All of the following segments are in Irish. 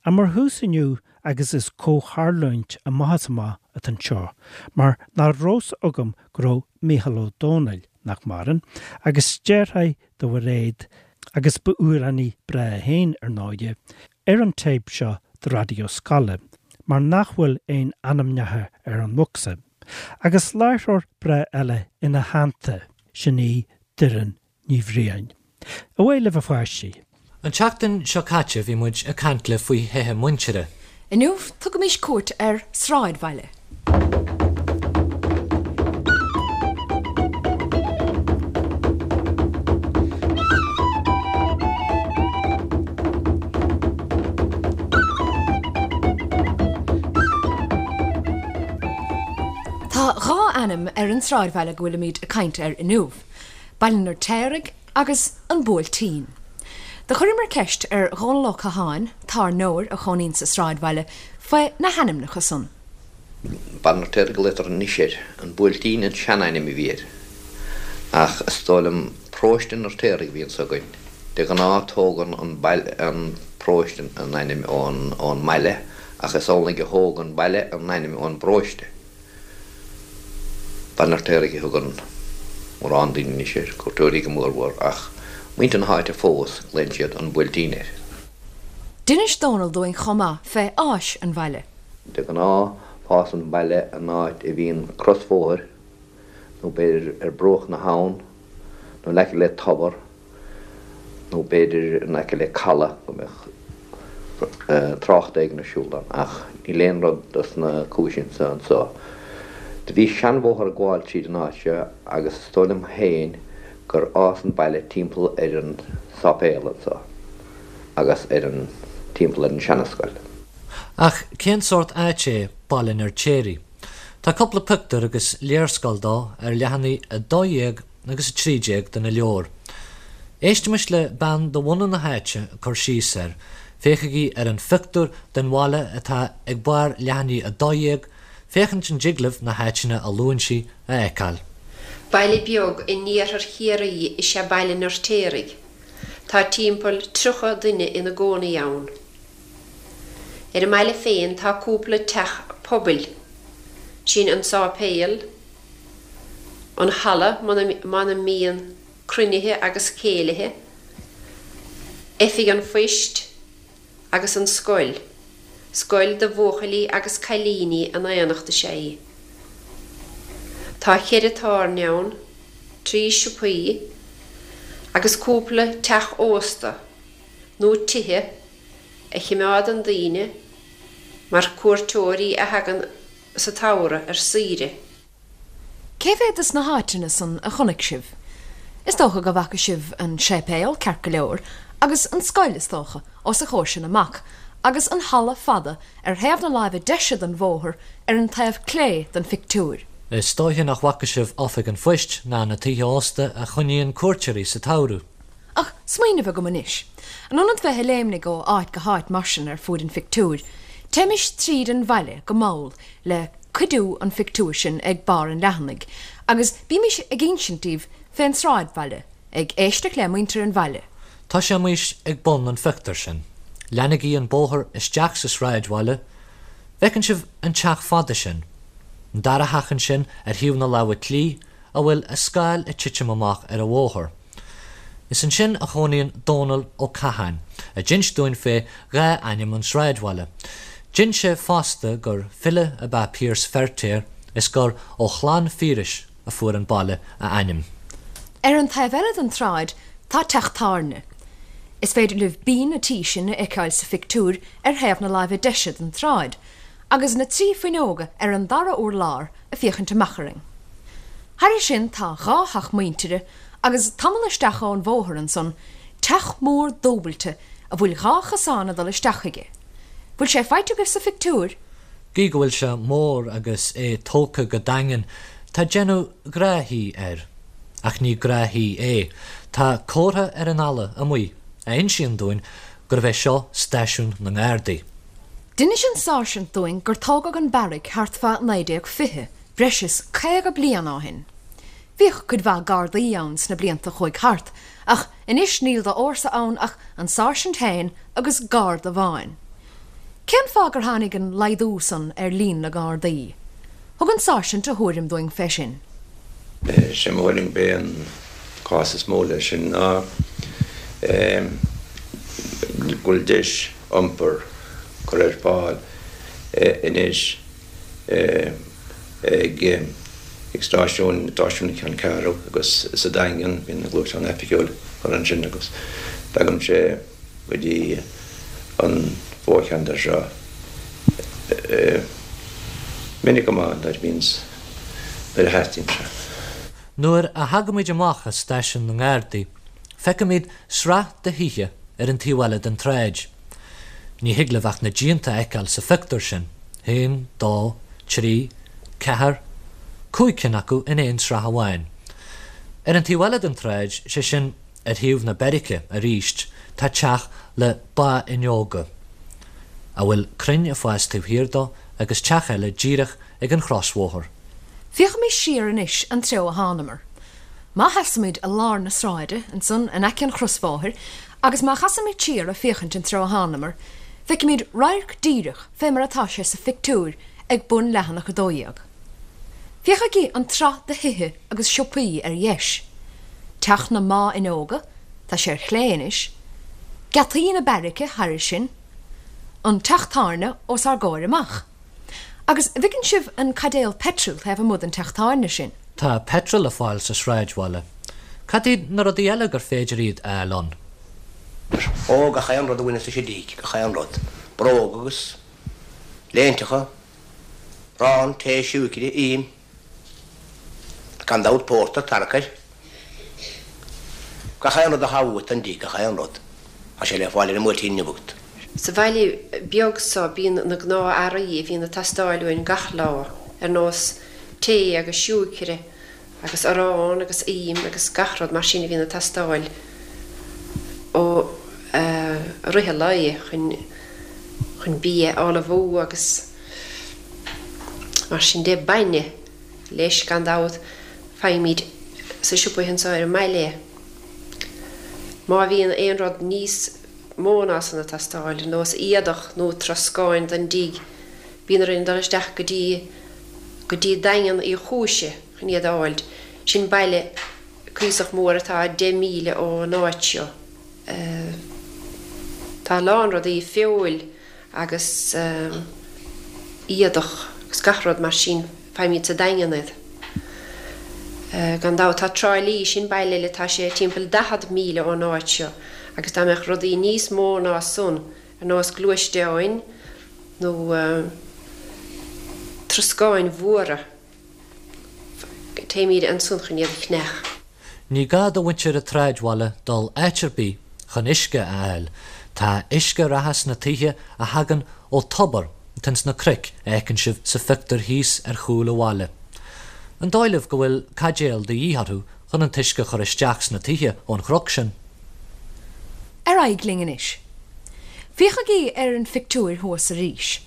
Ach mar thús inniu, agus is comhtharlúint amach is amach atá anseo, mar nach raibh 's agam go raibh Mícheál Ó Domhnaill, nach maireann, agus deartháir do Mhairéad, agus ba amhránaí breá é féin, ar ndóighe, ar an téip seo do Raidió Scoile, mar nach bhfuil aon ainmneacha ar an mbocsa. Agus láithreoir breá eile ina theannta, sin í Doireann Ní Bhriain. Away libh a pháistí! An tseachtain seo caite bhí muid ag caint libh faoi thithe muintire. Inniu tugaimis cuairt ar sráidbhaile. Tá dhá ainm ar an sráidbhaile go bhfuilimid ag caint air inniu. Baile an Fheirtéaraigh agus An Buailtín. Do chuireamar ceist ar Dhónal Ó Catháin, tábhairneoir a chónaíonn sa sráidbhaile, faoi na hainmneacha san. Baile an Fheirtéaraigh a ghlaotar anois air. An Buailtín an seanainm a bhí air. Ach is dóigh liom Paróiste an Fheirtéaraigh a bhí anso againn. De ghnáth tógann an baile, an paróiste an ainm ón ón mbaile ach is amhlaidh a thóg an baile an ainm ón bparóiste. Baile an Fheirtéaraigh a thugann mórán daoine anois air, cuairteoirí go mórmhór, ach muintir na háite fós, glaonn siad An Buailtín air. D'inis Dónal dúinn chomh maith fé fháis an bhaile. De ghnáth, fásann baile in áit a bhíonn crosbhóthar, nó b'fhéidir ar bruach na habhann, nó in aice le tobar, nó b'fhéidir in aice le caladh go mbeadh trácht éigin ar siúl ann, ach níl aon rud dos na cúiseanna san anso. Do bhí seanbhóthar ag gabháil tríd an áit seo agus is dóigh liom féin gur fhás an baile timpeall ar an sáipéal anso agus ar an, timpeall ar an seanascoil. Ach cén sórt áit é Baile an Fheirtéaraigh? Tá cúpla pictiúr agus léarscáil dó ar leathanaigh 12 agus 13 de na leabhair. Éistimis le bean de bhunadh na háite ag cur síos air. Féachaigí ar an phictiúr den bhaile atá ag barr leathanaigh 12, féachaint an dtig libh na háiteanna a luann sí a fheiceáil. Baile beag in iarthar Chiarraí is ea Baile an Fheirtéaraigh. Tá timpeall 30 duine ina gcónaí ann. Ar an mbaile féin tá cúpla teach pobail, sin an sáipéal, an halla mar a mbíonn cruinnithe agus céilithe, oifig an phoist agus an scoil. Scoil do bhuachaillí agus cailíní in aonacht is ea í. Tá cheithre tábhairne ann, trí siopaí agus cúpla teach ósta nó tithe a chimeádann daoine mar cuairteoirí a thagann sa tsamhradh ar saoire. Cé mhéad de na háiteanna san a chonaic sibh? Is dócha go bhfaca sibh an séipéal, ceart go leor, agus an scoil, is dócha, os a chomhair sin amach, agus an halla fada ar thaobh na láimhe deise den bhóthar ar an taobh clé den phictiúr. Is dóiche nach bhfaca sibh oifig an phoist ná na tithe ósta a choinníonn cuairteoirí sa tsamhradh. Ach smaoineamh agam anois. In ionad bheith ag léimnigh ó áit go háit mar sin ar fuaid an phictiúir, téimis tríd an bhaile go mall le cuidiú an phictiúir sin ag barr an leathanaigh, agus bímis ag insint daoibh fén sráidbhaile, ag éisteacht le muintir an bhaile. Tosaímis ag bun an phictiúir sin. Leanaigí an bóthar isteach sa sráidbhaile. Bhfeiceann sibh an teach fada sin? An dara theach ansin ar thaobh na láimhe clí, a bhfuil a scáil ag titim amach ar an bhóthar. Is ansin a chónaíonn Dónal Ó Catháin, a d'inis dúinn fé dhá ainm an sráidbhaile. D'inis sé fosta gur file ab ea Pearse Feirtéar is gur ó chlann Phiarais a fuair an baile a ainm. Ar an taobh eile den tsráid tá teach tábhairne. Is féidir libh binn an tí sin a fheiceáil sa phictiúr ar thaobh na láimhe deise den tsráid, agus na trí fuinneoga ar an dara urlár ag féachaint amach orainn. Thairis sin tá dhá theach muintire agus tamall isteach ón bhóthar ansan teach mór dúbailte a bhfuil dhá chosán ag dul isteach chuige. Bhfuil sé faighte agaibh sa phictiúr? Gidh go bhfuil sé mór agus é tógtha go daingean, tá déanamh gnáth-thí air. Ach ní gnáth-thí é. Tá comhartha ar an fhalla amuigh a insíonn dúinn gurbh é seo stáisiún na nGardaí. D'inis an sáirsint dúinn gur tógadh an beairic thart fá 1920, breis is 50 bliain ó shin. Bhíodh cuid mhaith Gardaí ann sna blianta a chuaigh thart, ach anois níl d'fhórsa ann ach an sáirsint féin agus Garda amháin. Cén fáth gur tháinig an laghdú san ar líon na nGardaí? Thug an Sáirsint a thuairim dúinn fé sin. Sé mo thuairim b'é an cás is mó leis sin ná go bhfuil deis iompair curtha ar fáil anois ag stáisiún stáisiún na Ceanncheathrú agus sa Daingean, bíonn an gluaisteán oifigiúil curtha ansin agus tagann sé go dtí an mhórcheantar seo minic go maith nuair a bhíonns, nuair a theastaíonn sé. Nuair a thagaimid amach as stáisiún na nGardaí, feicimid sraith de thithe ar an taobh eile den tsráid. Ní thig libh ach na díonta a fheiceáil sa phictiúr sin, haon, dó, trí, ceathair, cúig cinn acu in aon sraith amháin. Ar an taobh eile den tsráid, sé sin, Ar thaobh na beairice arís tá teach le báfhuinneoga, a bhfuil crainn ag fás taobh thiar dó agus teach eile díreach ag an chrosbhóthar. Féachaimis siar anois an treo a thánamar. Má sheasaimid i lár na sráide, ansan in aice an chrosbhóthair, agus má chasaimid siar ag féachaint an treo a thánamar, feicimid radharc díreach fé mar atá sé sa phictiúr ag bun leathanach 12. Féachaigí an tsraith de thithe agus siopaí ar dheis. Teach na mbáfhuinneoga, tá sé ar chlé anois. Geataí na beairice thairis sin. An teach tábhairne os ár gcomhair amach. Agus an bhfeiceann sibh an caidéal peitril taobh amuigh den teach tábhairne sin? Tá peitreal le fáil sa sráidbhaile. Cad iad na rudaí eile gur féidir iad a fháil ann? Ó, gach aon rud a bhaineas leis an dtigh, gach aon rud. Bróga agus léinteacha, arán, tae, siúicre, im. Gan dabht pórtar, tarcair. Gach aon rud atá uait don dtigh, gach aon rud. Tá sé le fáil ar an mBuailtín inniu agat. Sa bhaile beag so bíonn na gnáth-earraí a bhíonn ag teastáil uainn gach lá, ar nós tae agus siúicre agus arán agus im agus gach rud mar sin a bhíonn ag teastáil ó i rith an lae chun chun bia a ullmhú agus Mar sin de, bainne, leis, gan dabht, faighimid sa siopa anseo ar an mbaile é. Má bhíonn aon rud níos mó ná san ag teastáil, ar nós éadach nó troscáin don dtigh, bíonn orainn dul isteach go dtí go dtí Daingean Uí Chúise chun iad a fháilt. Sin baile cuíosach mór atá 10 míle ón áit seo. Tá a lán rudaí, feoil, agus éadach agus gach rud mar sin, faighimid sa Daingean iad. Gan dabht tá Trá Lí, sin baile eile, tá sé timpeall 40 míle ón áit seo agus dá mbeadh rudaí níos mó ná san, ar nós gluaisteáin nó troscáin mhóra, Téimid ansan chun iad a cheannach. Ní gá do mhuintir an tsráidbhaile dul áit ar bith chun uisce a fháil. Tá uisce reatha sna tithe a thagann ó tobar atá ins na cnoic a fheiceann sibh sa phictiúr thíos ar chúl an bhaile. An dóigh libh go bhfuil caidéal de dhíth orthu chun an t-uisce a chur isteach sna tithe ón chnoc sin? Ar aghaidh linn anois. Féachaigí ar an phictiúir thuas arís.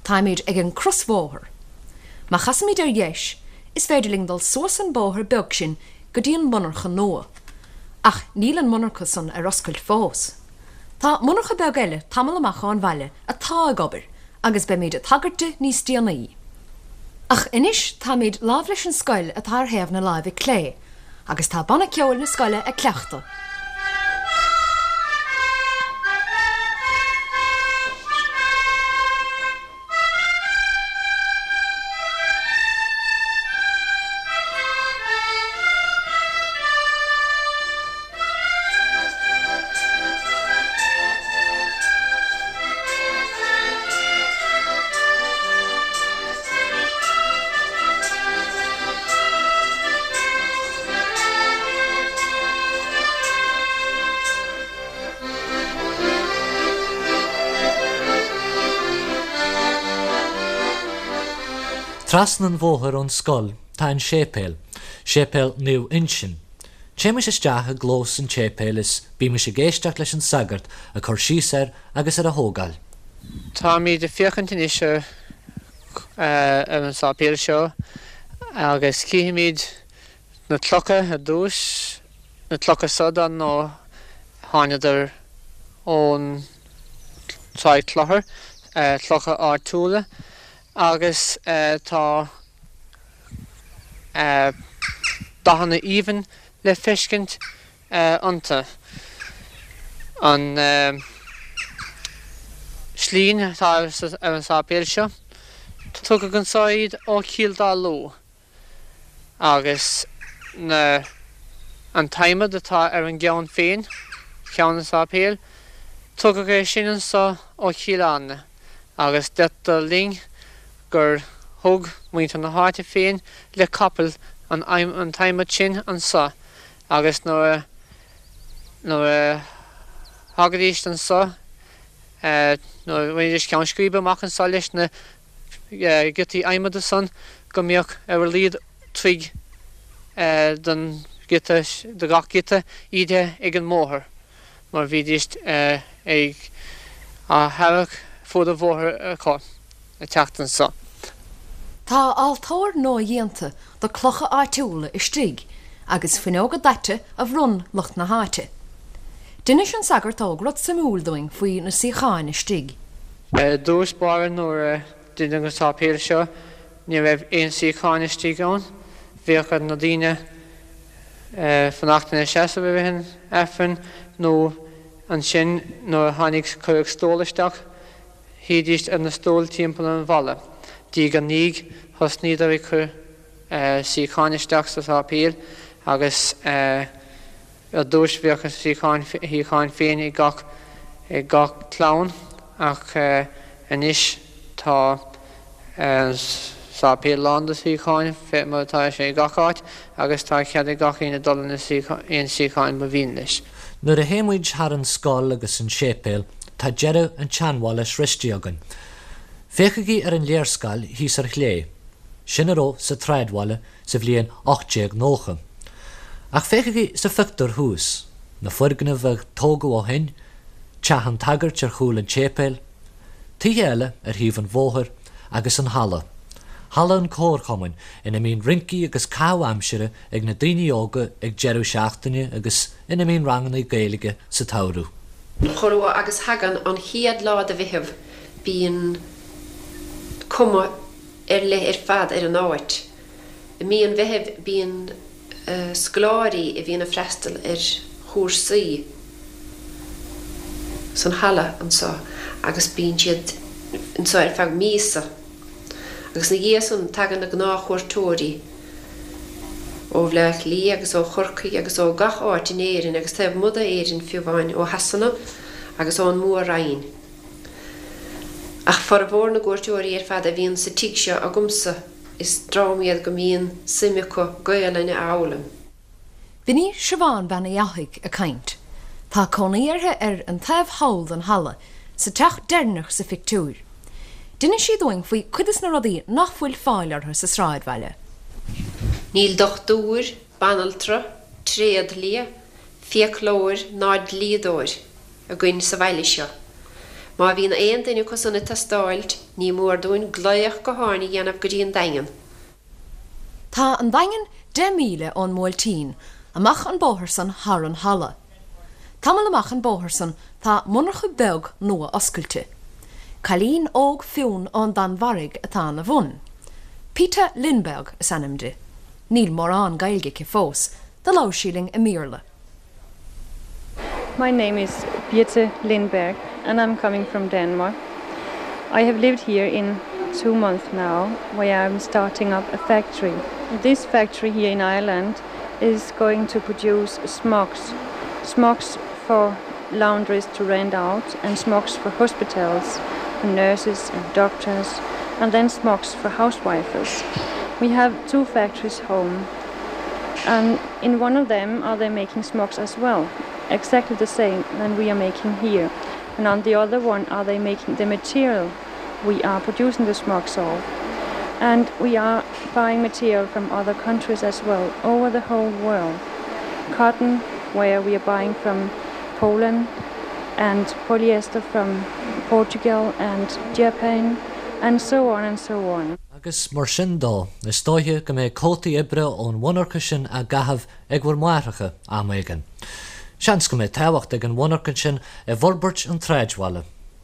Táimid ag an crosbhóthar. Má chasaimid ar dheis, is féidir linn dul suas an bóthar beag sin go dtí an monarcha nua. Ach níl an monarcha san ar oscailt fós. Tá monarcha beag eile tamall amach ón bhaile atá ag obair agus beimid ag tagairt di níos déanaí. Ach anois táimid láimh leis an scoil atá ar thaobh na láimhe clé agus tá banna ceoil na scoile ag cleachtadh. Trasna an bhóthair ón scoil tá an séipéal, Séipéal Naomh Uinseann. Téimis isteach i gclós an tséipéil is bímis ag éisteacht leis an sagart ag cur síos air agus ar a thógáil. Táimid ag féachaint anois ar an sáipéal seo agus cífimid Na clocha ar dtús, na clocha so dar ndóigh thánadar ón Tráigh Chlochair. clocha áitiúla agus tá dathanna aoibhinn le feiscint iontu. An tslinn atá ar an sáipéal seo, tugadh anso iad ó Chill Dá Lú agus na an t-adhmad atá ar an gceann féin, ceann an tsáipéil, tugadh é sin anso ó Chill Airne agus deirtear linn gur thug muintir na háite féin le capaill an an t-adhmad sin anso agus nuair a nuair a thagaidís anso nuair a bhainidís ceann scríbe amach anso leis na giotaí adhmada san go mbíodh ar a laghad troigh don ghiota, do gach giota ídithe ag an mbóthar mar bhídís ag á tharrac fuaid an bhóthair acu ag teacht anso. Tá altóir nua-dhéanta de clocha áitiúla istigh agus fuinneoga daite a bhronn lucht na háite. D'inis an sagart óg rud suimiúil dúinn faoi na suíocháin istigh. I dtús báire nuair a deineadh an sáipéal seo ní raibh aon suíocháin istigh ann. Bhíodh ar na daoine fanacht ina seasamh i rith an Aifrinn nó ansin nuair a tháinig cuireadh stól isteach shuídís ar na stóil timpeall an bhalla. Diaidh ar ndiaidh thosnaíodar ag cur suíocháin isteach sa sáipéal agus Ar dtús bhíodh a suíocháin féin ag gach ag gach clann ach anois tá an sáipéal lán de suíocháin fé mar atá sé i gach áit agus tá cead ag gach aoinne dul ina aon suíocháin ba mhian leis. Nuair a théimid thar an scoil agus an séipéal tá deireadh an tseanbhaile sroiste againn. Féachaigí ar an léarscáil thíos ar chlé. Sin a raibh sa tsráidbhaile sa bhliain 1890. Ach féachaigí sa phictiúr thuas, na foirgnimh a tógadh ó shin, teach an tsagairt ar chúl an tséipéil, tithe eile ar thaobh an bhóthair agus an halla, halla an Chomharchumainn ina mbíonn rincí agus caitheamh aimsire ag na daoine óga ag deireadh seachtaine agus ina mbíonn ranganna Gaeilge sa tsamhradh. Chomh luath agus thagann an chéad lá de Mheitheamh bíonn cuma ar leith ar fad ar an áit. I mí an Mheithimh bíonn scoláirí a bhíonn ag freastal ar chúrsaí san halla anseo agus bíonn siad anseo ar feadh míosa agus ina dhiaidh san tagann na gnáthchuairteoirí ó Bhleá Cliath agus ó Chorcaigh agus ó gach áit in Éirinn agus taobh amuigh d'Éirinn fiú amháin, ó Shasana agus ón Mór-Roinn. Ach formhór na gcuairteoirí ar fad a bhíonn sa tigh seo agamsa, is dream iad go mbíonn suim acu Gaelainn a fhoghlaim. B'in í Siobhán Bean Uí Fhathaigh ag caint. Tá cónaí uirthi ar an taobh thall den halla, sa teach deireanach sa phictiúr. D'inis sí dúinn faoi cuid des na rudaí nach bhfuil fáil orthu sa sráidbhaile. Níl dochtúir, banaltra, tréadlia, fiaclóir ná dlíodóir. againn sa bhaile seo. Má bhíonn aon duine acu san ag teastáilt, ní mór dúinn glaoch gutháin a dhéanamh go dtí an Daingean. Tá an Daingean 10 míle ón mBuailtín, amach an bóthar san thar an halla. Tamall amach an bóthar san tá monarcha beag nua oscailte. Cailín óg fionn ón Danmhairg atá ina bhun. Pita Lindberg is ainm di. Níl mórán Gaeilge aici fós, do labhair sí linn i mBéarla. My name is Birte Lindberg and I'm coming from Denmark. I have lived here in 2 months now where I'm starting up a factory. This factory here in Ireland is going to produce smocks, smocks for laundries to rent out and smocks for hospitals, for nurses and doctors, and then smocks for housewives. We have 2 factories home and in one of them are they making smocks as well, exactly the same than we are making here. And on the other one are they making the material we are producing the smocks of. And we are buying material from other countries as well, over the whole world. Cotton, where we are buying from Poland, and polyester from Portugal and Japan, and so on and so on. Agus mar sin dó, is dóiche go mbeidh cótaí oibre ón mhonarcha sin á gcaitheamh ag bhur máithreacha am éigin. Seans go mbeidh tábhacht ag an mhonarcha sin i bhforbairt an tsráidbhaile.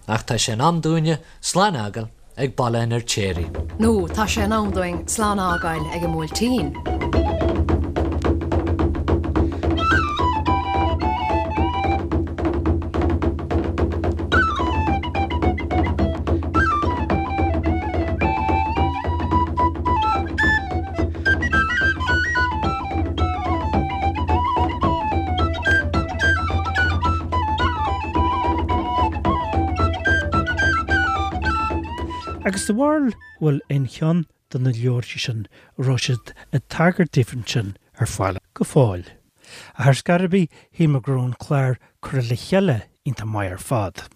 Ach tá sé in am dúinne slán a fhágáil ag Baile an Fheirtéaraigh. Nó tá sé in am dúinn slán a fhágáil ag an mBuailtín. Agus do bharúil bhfuil aon cheann de na leabharthaí sin a raibh siad ag tagairt daofa ansin ar fáil go fóill. Ach ar scor ar bith, shíl mé go raibh an clár curtha le chéile iontach maith ar fad.